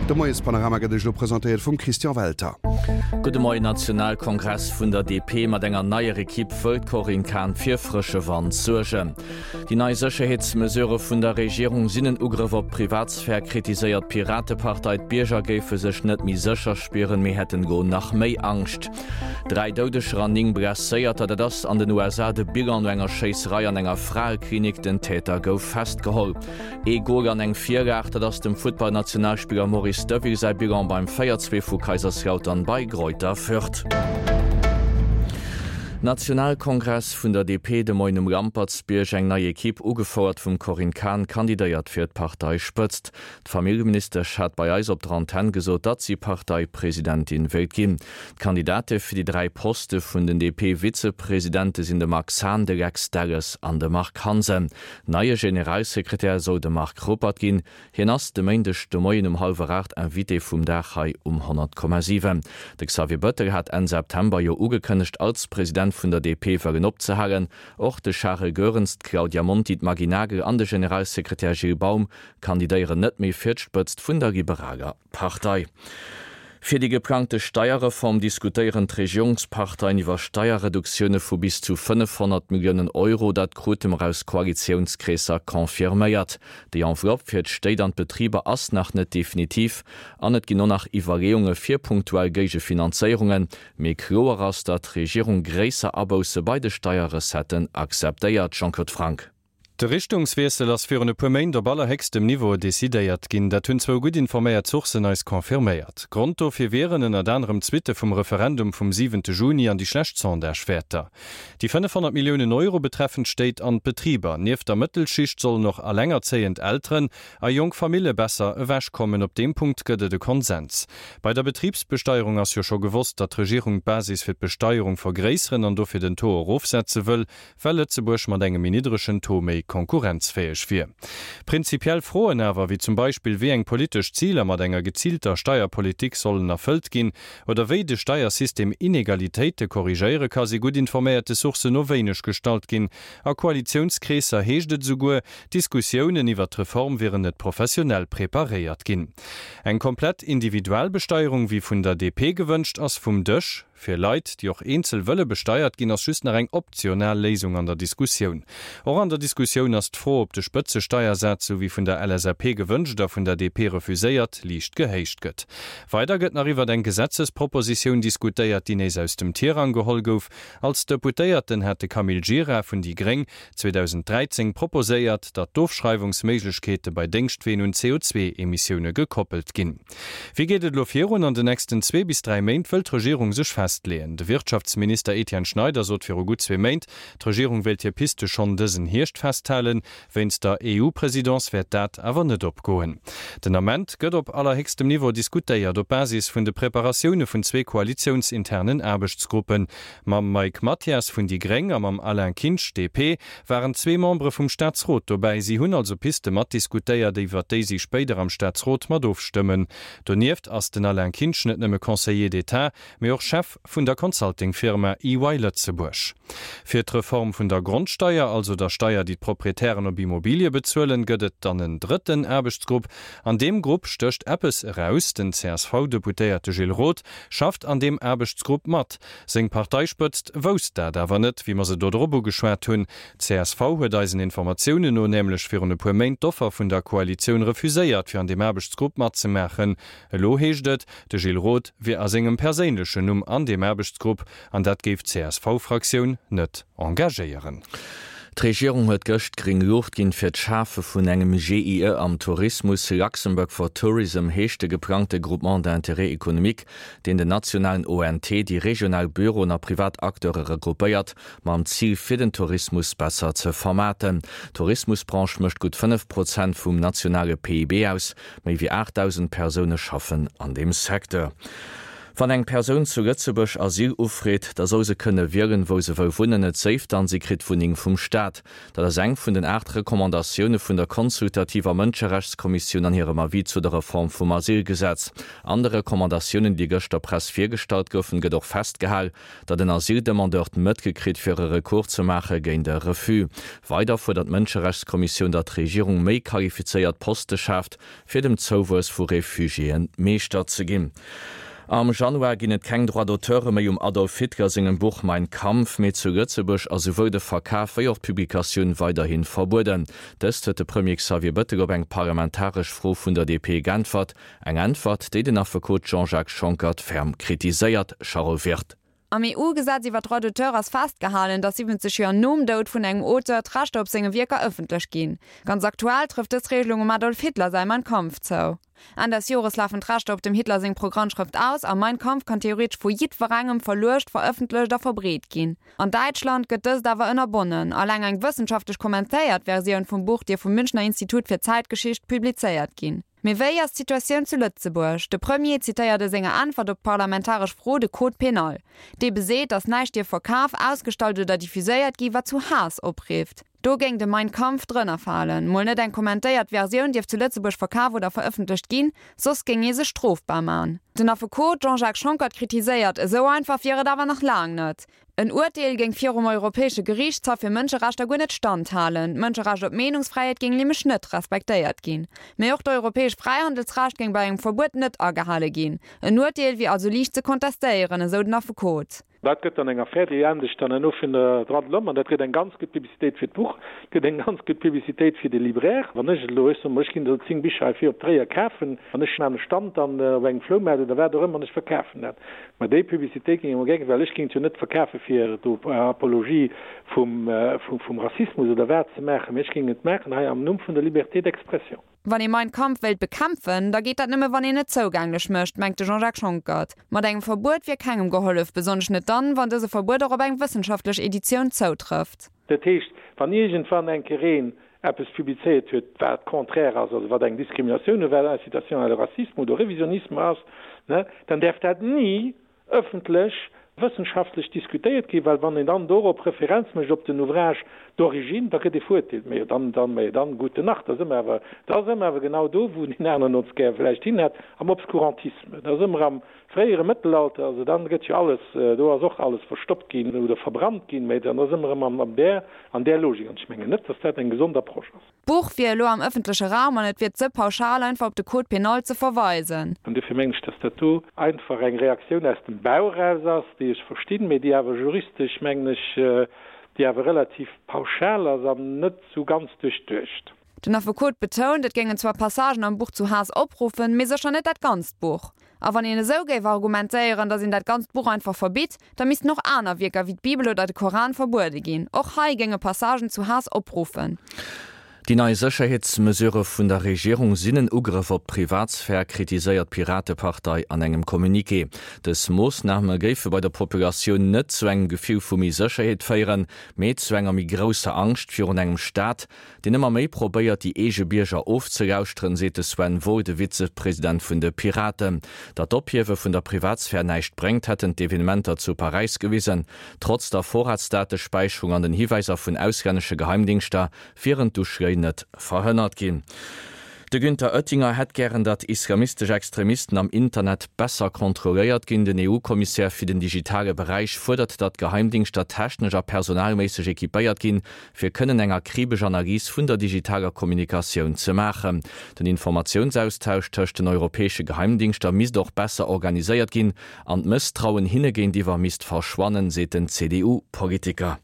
De Moiespanorama gëtt Iech elo presentéiert vum Christian Welter. Gudde Moien, Nationalkongress vun der DP mat enger neier Ekipp wëll d'Corinne Cahen fir frësche Wand suergen. Déi nei Sécherheetsmesurë vun der Regierung sinn en Ugrëff op d'Privatsphär, kritiséiert d'Piratepartei. D'Bierger géife sech net méi sécher spieren, mee hätten elo nach méi Angscht. 3 Doudeger an 9 Blesséierter, dat ass an den USA de Bilan no enger Schéisserei an enger Fraeklinik. Den Täter gouf festgeholl. Ee Gol an eng Virlag, dat ass dem Futtballnationalspiller Maurice Deville säi Bilan beim 4, 2 vu Kaiserslautern bei Greuther Fürth. Nationalkongress vun der DP de Moien um Lampertsbierg, Eng nei Ekipp, ugefouert vum Corinne Cahen, kandidéiert fir d'Parteispëtzt. D'Familljeministesch hat bei eis op der Antenn gesot, datt si Parteipresidentin wéilt ginn. D'Kandidate fir déi 3 Poste vun den DP-Vizepresidente sinn de Max Hahn, de Lex Delles an de Marc Hansen. Neie Generalsekretär soll de Marc Ruppert ginn. Hien ass de Méindeg de Moien um hallwer 8 Invité vum Dag hei um 100,7. De Xavier Bettel hat Enn September jo ugekënnegt, als President vun der DP wëllen opzehalen. Och de Charel Goerens, d'Claudia Monti, d'Maggy Nagel an de Generalsekretär Gilles Baum kandidéieren net méi fir d'Spëtzt vun der liberaler Partei. Fir déi geplangte Steierreform diskutéieren d'Regierungsparteien iwwer Steierreduktioune vu bis zu 500 Milliounen Euro. Dat krute mer aus Koalitiounskreesser confirméiert. Déi Enveloppe fir d'Stéit an d'Betriber ass nach net definitiv an et ginn och nach Iwwerleeunge fir punktuell Géigefinanzéierungen. Mee kloer ass, datt d'Regierung gréisser Abousse bei de Steierrecetten akzeptéiert. Jean-Claude Franck. De Richtungswiessel ass virun e puer Méint op allerhéchstem Niveau decidéiert ginn. Dat hunn zwou gutt informéiert Sourcen eis confirméiert. Grond dofir wieren ënnert anerem d'Suitte vum Referendum vum siwente Juni an déi schlecht Sondagewäerter. Déi 500 Milliounen Euro betreffen d'Stéit an d'Betriber. Nieft der Mëttelschicht sollen och allengerzéiend Elteren a jonk Famille besser ewechkommen. Op deem Punkt gëtt et e Konsens. Bei der Betribsbesteierung ass jo scho gewosst, datt d'Regierung d'Basis fir d'Besteierung vergréisseren an dofir den Taux erofsetze wëll. well Lëtzebuerg mat engem méi niddregen Taux méi konkurrenzfäeg wier. Prinzipiell Froen awer, wéi zum Beispill wéi eng politesch Ziler mat enger geziilter Steierpolitik sollen erfëllt ginn oder wéi de Steiersystem Inegalitéite korrigéiere ka si gutt informéierte Sourcen no wéineg gestallt ginn. A Koalitiounskreesser heescht et esouguer, d'Diskussiounen iwwert d'Reform wieren net professionell preparéiert ginn. Eng komplett Individualbesteierung, wéi vun der DP gewënscht, ass vum Dësch. Fir Leit, déi och eenzel wëlle besteiert ginn, ass just nach eng optional Léisung an der Diskussioun. Och an der Diskussioun ass d'Fro, ob de Spëtzesteiersaz, sou wéi vun der LSAP gewënscht a vun der DP refuséiert, liicht gehéicht gëtt. Weider gëtt nach iwwert eng Gesetzespropositioun diskutéiert, déi nees aus dem Tirang geholl gouf. Als Deputéierten hat de Camille Gira vun déi gréng 2013 proposéiert, datt d'Ofschreiwungsméiglechkeete bei Déngschtween un CO2-Emissioune gekoppelt ginn. Wéi geet et elo virun? An den nächsten zwee bis 3 Méint wëll d'Regierung sech festleeën. De Wirtschaftsminister Etienne Schneider sot viru gutt zwee Méint, d'Regierung wéilt hir Piste schonn dësen Hierscht festhalen. Wéinst der EU-Presidence wäert dat awer net opgoen. Den Ament gëtt op allerhéchstem Niveau diskutéiert, op Basis vun de Preparatioune vun zwee koalitiounsinternen Aarbechtsgruppen. Mam Mike Mathias vun déi gréng a mam Alain Kinsch, DP, waren zwee Membere vum Staatsrot dobäi. Si hunn also Piste matdiskutéiert, iwwer déi si spéider am Staatsrot mat ofstëmmen. Donieft ass den Alain Kinsch net nëmme Conseiller d'État, mee och Chef vun der Consulting-Firma EY Lëtzebuerg. Fir d'Reform vun der Grondsteier, also der Steier, déi d'Proprietären op Immobilie bezuelen, gëtt et dann en drëtten Aarbechtsgrupp. An deem Grupp stécht eppes eraus, Den CSV-Deputéierte Gilles Roth schafft an deem Aarbechtsgrupp mat. Seng Parteispëtzt wousst dat awer net, wéi mer se do drop ugeschwat hunn. Csv huet eisen Informatiounen no nämlech virun e puer Méint d'Offer vun der Koalitioun refuséiert, fir an deem Aarbechtsgrupp matzemaachen. Elo heescht et, de Gilles Roth wier a sengem perséinlechen Numm an deem Aarbechtsgrupp an dat géif d'CSV-Fraktioun net engagéieren. D'Regierung huet gëscht gréng Luucht ginn fir d'Schafe vun engem GIE am Tourismus. Luxembourg for Tourism heescht de geplangte Groupement d'intérêt économique, deen den nationalen ONT, déi regional Büroen a privat Acteure regroupéiert, mam Zil fir den Tourismus besser ze vermaarten. D'Tourismusbranche mécht gutt 5 Prozent vum nationale PIB aus. Méi wéi 8.000 Persoune schaffen an deem Secteur. Wann eng Persoun zu Lëtzebuerg Asyl ufreet, da soll se kënne wielen, wou se wëll wunnen, et séif dann, si kritt d'Wunneng vum Staat. Dat ass eng vun den 8 Recommandatioune vun der consultativer Mënscherechtskommissioun an hirem Avis zu der Reform vum Asylgesetz. An de Recommandatiounen, déi gëscht der Press virgestallt goufen, gëtt och festgehal, datt en Asyldemandeur d'Mëttel kritt, fir e Recours ze maache géint e Refus. Weider fuerdert d'Mënscherechtskommissioun, datt d'Regierung méi qualifizéiert Poste schaaft, fir dem Zouwuess vu Refugiéen Meeschter ze ginn. Am Januar ginn et keng Droits d'auteure méi um Adolf Hitler sengem Buch Mein Kampf, mee zu Lëtzebuerg ass souwuel de Verkaf wéi och d'Publikatioun weiderhi verbueden. Dëst huet de Premier Xavier Bettel op eng parlamentaresch Fro vun der DP geäntwert. Eng Äntwert, déi den Affekot Jean-Jacques Schonckert ferm kritiséiert. Charel Wirth. Am EU-Gesetz iwwer d'Droits d'auteur ass festgehalen, datt 70 Joer nom Doud vun engem Auteur d'Rechter op senge Wierker ëffentlech ginn. Ganz aktuell trëfft dës Regelung um Adolf Hitler säi Mein Kampf zou. Enn des Jores lafen d'Rechter op dem Hitler seng Programmschrëft aus a Mein Kampf kann theoretesch vu jiddwerengem verluecht, verëffentlecht a verbreet ginn. An Däitschland gëtt dëst awer ënnerbonnen. Alleng eng wëssenschaftlech kommentéiert Versioun vum Buch dierf vum Münchner Institut fir Zäitgeschicht publizéiert ginn. Mee wéi ass d'Situatioun zu Lëtzebuerg? De Premier zitéiert a senger Äntwert op d'parlamentaresch Fro de Code pénal. Dee beseet, datt näischt dierf verkaf, ausgestallt oder diffuséiert gi wat zu Haass oprifft. Do géing de Mein Kampf drënner falen. Mol net eng kommentéiert Versioun dierf zu Lëtzebuerg verkaf oder verëffentlecht ginn, soss géing ee sech strofbar man. Den Affekot Jean-Jacques Schonckert kritiséiert, esou einfach wier et awer nach laang net. En Urteel géing virum Europäesche Geriichtshaff fir Mënscherechter guer net standhalen. D'Mënscherecht op Meenungsfräiheet géing nämlech net respektéiert ginn. Mee och d'europäesch Fräihandelsrecht géing bei engem Verbuet net agehale ginn. En Urteel wier also liicht ze kontestéieren, esou den Affekot. Dat gëtt dann eng Affär, déi endegt dann herno vun der Droits de l'homme an dat gëtt eng ganz gutt Publicitéit fir d'Buch, gëtt eng ganz gutt Publicitéit fir de Libraire. Wann ech elo, ech soe mol, ech ginn elo 10 Bicher hei vir op Tréier kafen an ech maachen e Stand dann op engem Floumaart oder wat och ëmmer an ech verkafen dat, Mä déi Publicitéit géing ech mol gär, well ech géing et jo net verkafe fir do Apologie vum Rassismus oder wat ze maachen, mä ech géing et maachen hei am Numm vun der Liberté d'expression. Wann ee Mein Kampf wéilt bekämpfen, da geet dat nëmme wann een et zougänglech mécht, mengt de Jean-Jacques Schonckert. Mat engem Verbuet wier kengem gehollef, besonnesch net dann, wann dëse Verbuet och op eng wëssenschaftlech Editioun zoutrëfft. Dat heescht, wann iergendwann eng Kéier een eppes publizéiert huet, wat contraire ass, also wat eng Diskriminatioun oder wat Incitation à le racisme oder au révisionnisme ass, ne, dann däerf dat ni ëffentlech wëssenschaftlech diskutéiert ginn, well wann een dann dorop Referenz mécht op den Ouvrage d'origine, da gëtt ee verurteelt. Mä jo dann, dann, mä jo dann, gute Nacht, da si mer awer, da si mer awer genau do, wou deen aneren ons gär vläicht hin hätt, am Obskurantisme. Da si mer am fréiere Mëttelalter, also dann gëtt jo alles, do ass och alles verstoppt ginn oder verbrannt ginn, mä dann da si mer erëm an där, an där Logik. An ech mengen net, dass dat eng gesond Approche ass. D'Buch wier elo am ëffentleche Raum an et wier ze pauschal einfach op de Code pénal ze verweisen. An duerfir mengen ech, dass dat do einfach eng Reaktioun aus dem Bauch eraus ass, déi ech verstinn, mä déi awer juristesch, mengen ech, déi awer relativ pauschal ass an net esou ganz duerchduecht. Den Affekot betount, et géingen zwar Passagen am Buch zu Haass opruffen, mee sécher net dat ganzt Buch. A wann een esou géif argumentéieren, datt een dat ganzt Buch einfach verbitt, da missten och aner Wierker wéi d'Bibel oder de Koran verbuede ginn. Och hei géinge Passagen zu Haass opruffen. Déi nei Sécherheetsmesurë vun der Regierung sinn en Ugrëff op d'Privatsphär, kritiséiert d'Piratepartei an engem Communiqué. Dës Moossname géife bei der Populatioun net zu engem Gefill vu méi Sécherheet féieren, mee zu enger méi grousser Angscht virun engem Staat, deen ëmmer méi probéiert, déi eege Bierger ofzelauschteren, seet de Sven Wohl, de Vizepresident vun de Piraten. Datt d'Ophiewe vun der Privatsphär näischt bréngt, hätten d'Evenementer zu Paräis gewisen. Trotz der Vorratsdatespäicherung an den Hiwäiser vun auslännesche Geheimdingschter wieren d'Uschléi net verhënnert ginn. De Günther Oettinger hätt gären, datt islamistesch Extremisten am Internet besser kontrolléiert ginn. Den EU-Kommissär fir den digitale Beräich fuerdert, datt d'Geheimdingschter technesch a personalméisseg equipéiert ginn, fir kënnen eng akribesch Analys vun der digitaler Kommunikatioun ze maachen. Den Informatiounsaustausch tëscht den europäesche Geheimdingschter misst och besser organiséiert ginn an d'Mësstrauen hinne géintiwwer misst verschwannen, seet den CDU-Politiker.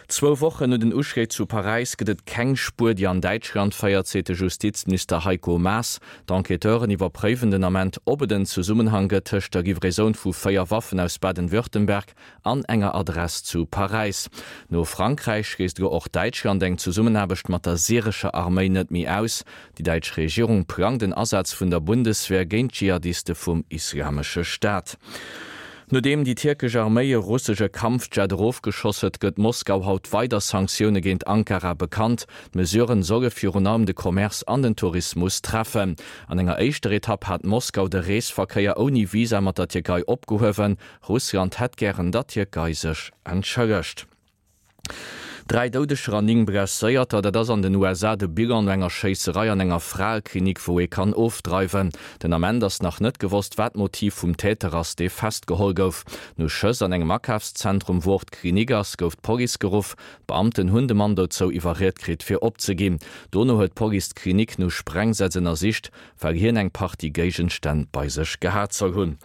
Zwou Wochen no den Uschléi zu Paräis gëtt et keng Spuer, déi an Däitschland féiert, seet de Justizminister Heiko Maas. D'Enquêteuren iwwerpréiwen den Ament, ob et en Zesummenhang gëtt tëscht der Livraisoun vu 4 Waffen aus Baden-Württemberg an enger Adress zu Paräis. No Frankräich schléisst elo och Däitschland eng Zesummenaarbecht mat der syrescher Arméi net méi aus. Déi däitsch Regierung plangt en Asaz vun der Bundeswehr géint d'Dschihadiste vum Islamesche Staat. Nodeem déi tierkesch Arméi e russesche Kampfjet erofgeschoss huet, gëtt Moskau haut weider Sanktioune géint Ankara bekannt. D'Mesuren solle virun allem de Commerce an den Tourismus treffen. An enger éischter Etapp hat Moskau de Reesverkéier ouni Visa mat der Tierkei opgehuewen. Russland hätt gären, datt d'Tierkei sech entschëllegt. 3 Doudeger an 9 Blesséierter, dat ass an den USA de Bilan no enger Schéisserei an enger Fraeklinik, wou ee kann ofdreiwen. Den Ament ass nach net gewosst, wat d'Motiv vum Täter ass, dee festgeholl gouf. No Schëss an engem Akafszentrum, wou och d'Klinik ass, gouf d'Police geruff. D'Beamten hunn de Mann dozou iwwerriet kritt, fir opzeginn. Dono huet d'Police d'Klinik no Sprengsätz ënnersicht, well hien eng Partie Géigenstänn bei sech gehat soll hunn.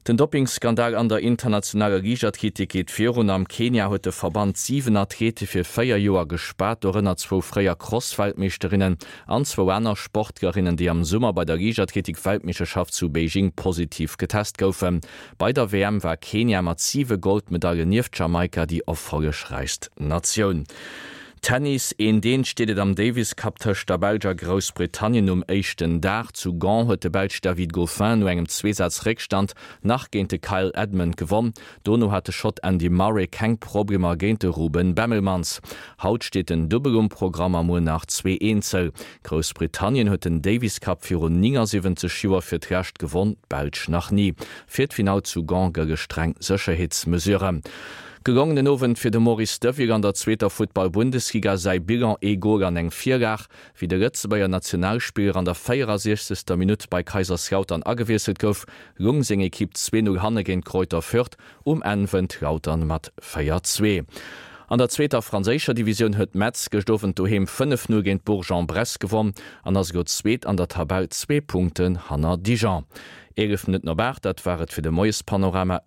Den Doppingskandal an der internationaler Liichtathletik geet virun. Am Kenia huet de Verband 7 Athlete fir 4 Joer gespaart, dorënner zwou fréier Cross-Weltmeeschterinnen an zwou aner Sportlerinnen, déi am Summer bei der Liichtathletik-Weltmeeschterschaft zu Beijing positiv getest goufen. Bei der WM war Kenia mat 7 Goldmedailen nieft Jamaika déi erfollegräichst Natioun. Tennis, Een Deen steet et am Davis Cup tëscht der Belsch a Groussbritannien um éischten Dag. Zu Gand huet de Belsch David Goffin no engem Zweesaz-Réckstand nach géint de Kyle Edmund gewonn. Dono hat de Schott Andy Murray keng Problemer géint de Ruben Bemelmans. Haut steet den Dubbel um Programm a muer nach zwee Eenzel. Groussbritannien huet den Davis Cup virun 79 Joer fir d'lescht gewonn, d'Belsch nach ni. Fir d'Finall zu Gand gëlle streng Sécherheetsmesuren. Gelongenen Owend fir de Maurice Deville an der zweeter Futtball-Bundesliga. Säi Bilan, ee Gol an eng Virlag. Wéi de Lëtzebuerger Nationalspiller an der 64. Minutt bei Kaiserslautern agewiesselt gouf, lung seng Ekipp 2, 0 hanne géint Greuther Fürth. Um Enn wënnt Lautern mat 4, 2. An der zweeter franséischer Divisioun huet Metz gëscht Owend doheem 5, 0 géint Bourg-en-Bresse gewonn an ass elo Zweet an der Tabell, zwee Punkten hanner Dijon. 11 Minutten op 8, dat war et fir de Moiespanorama.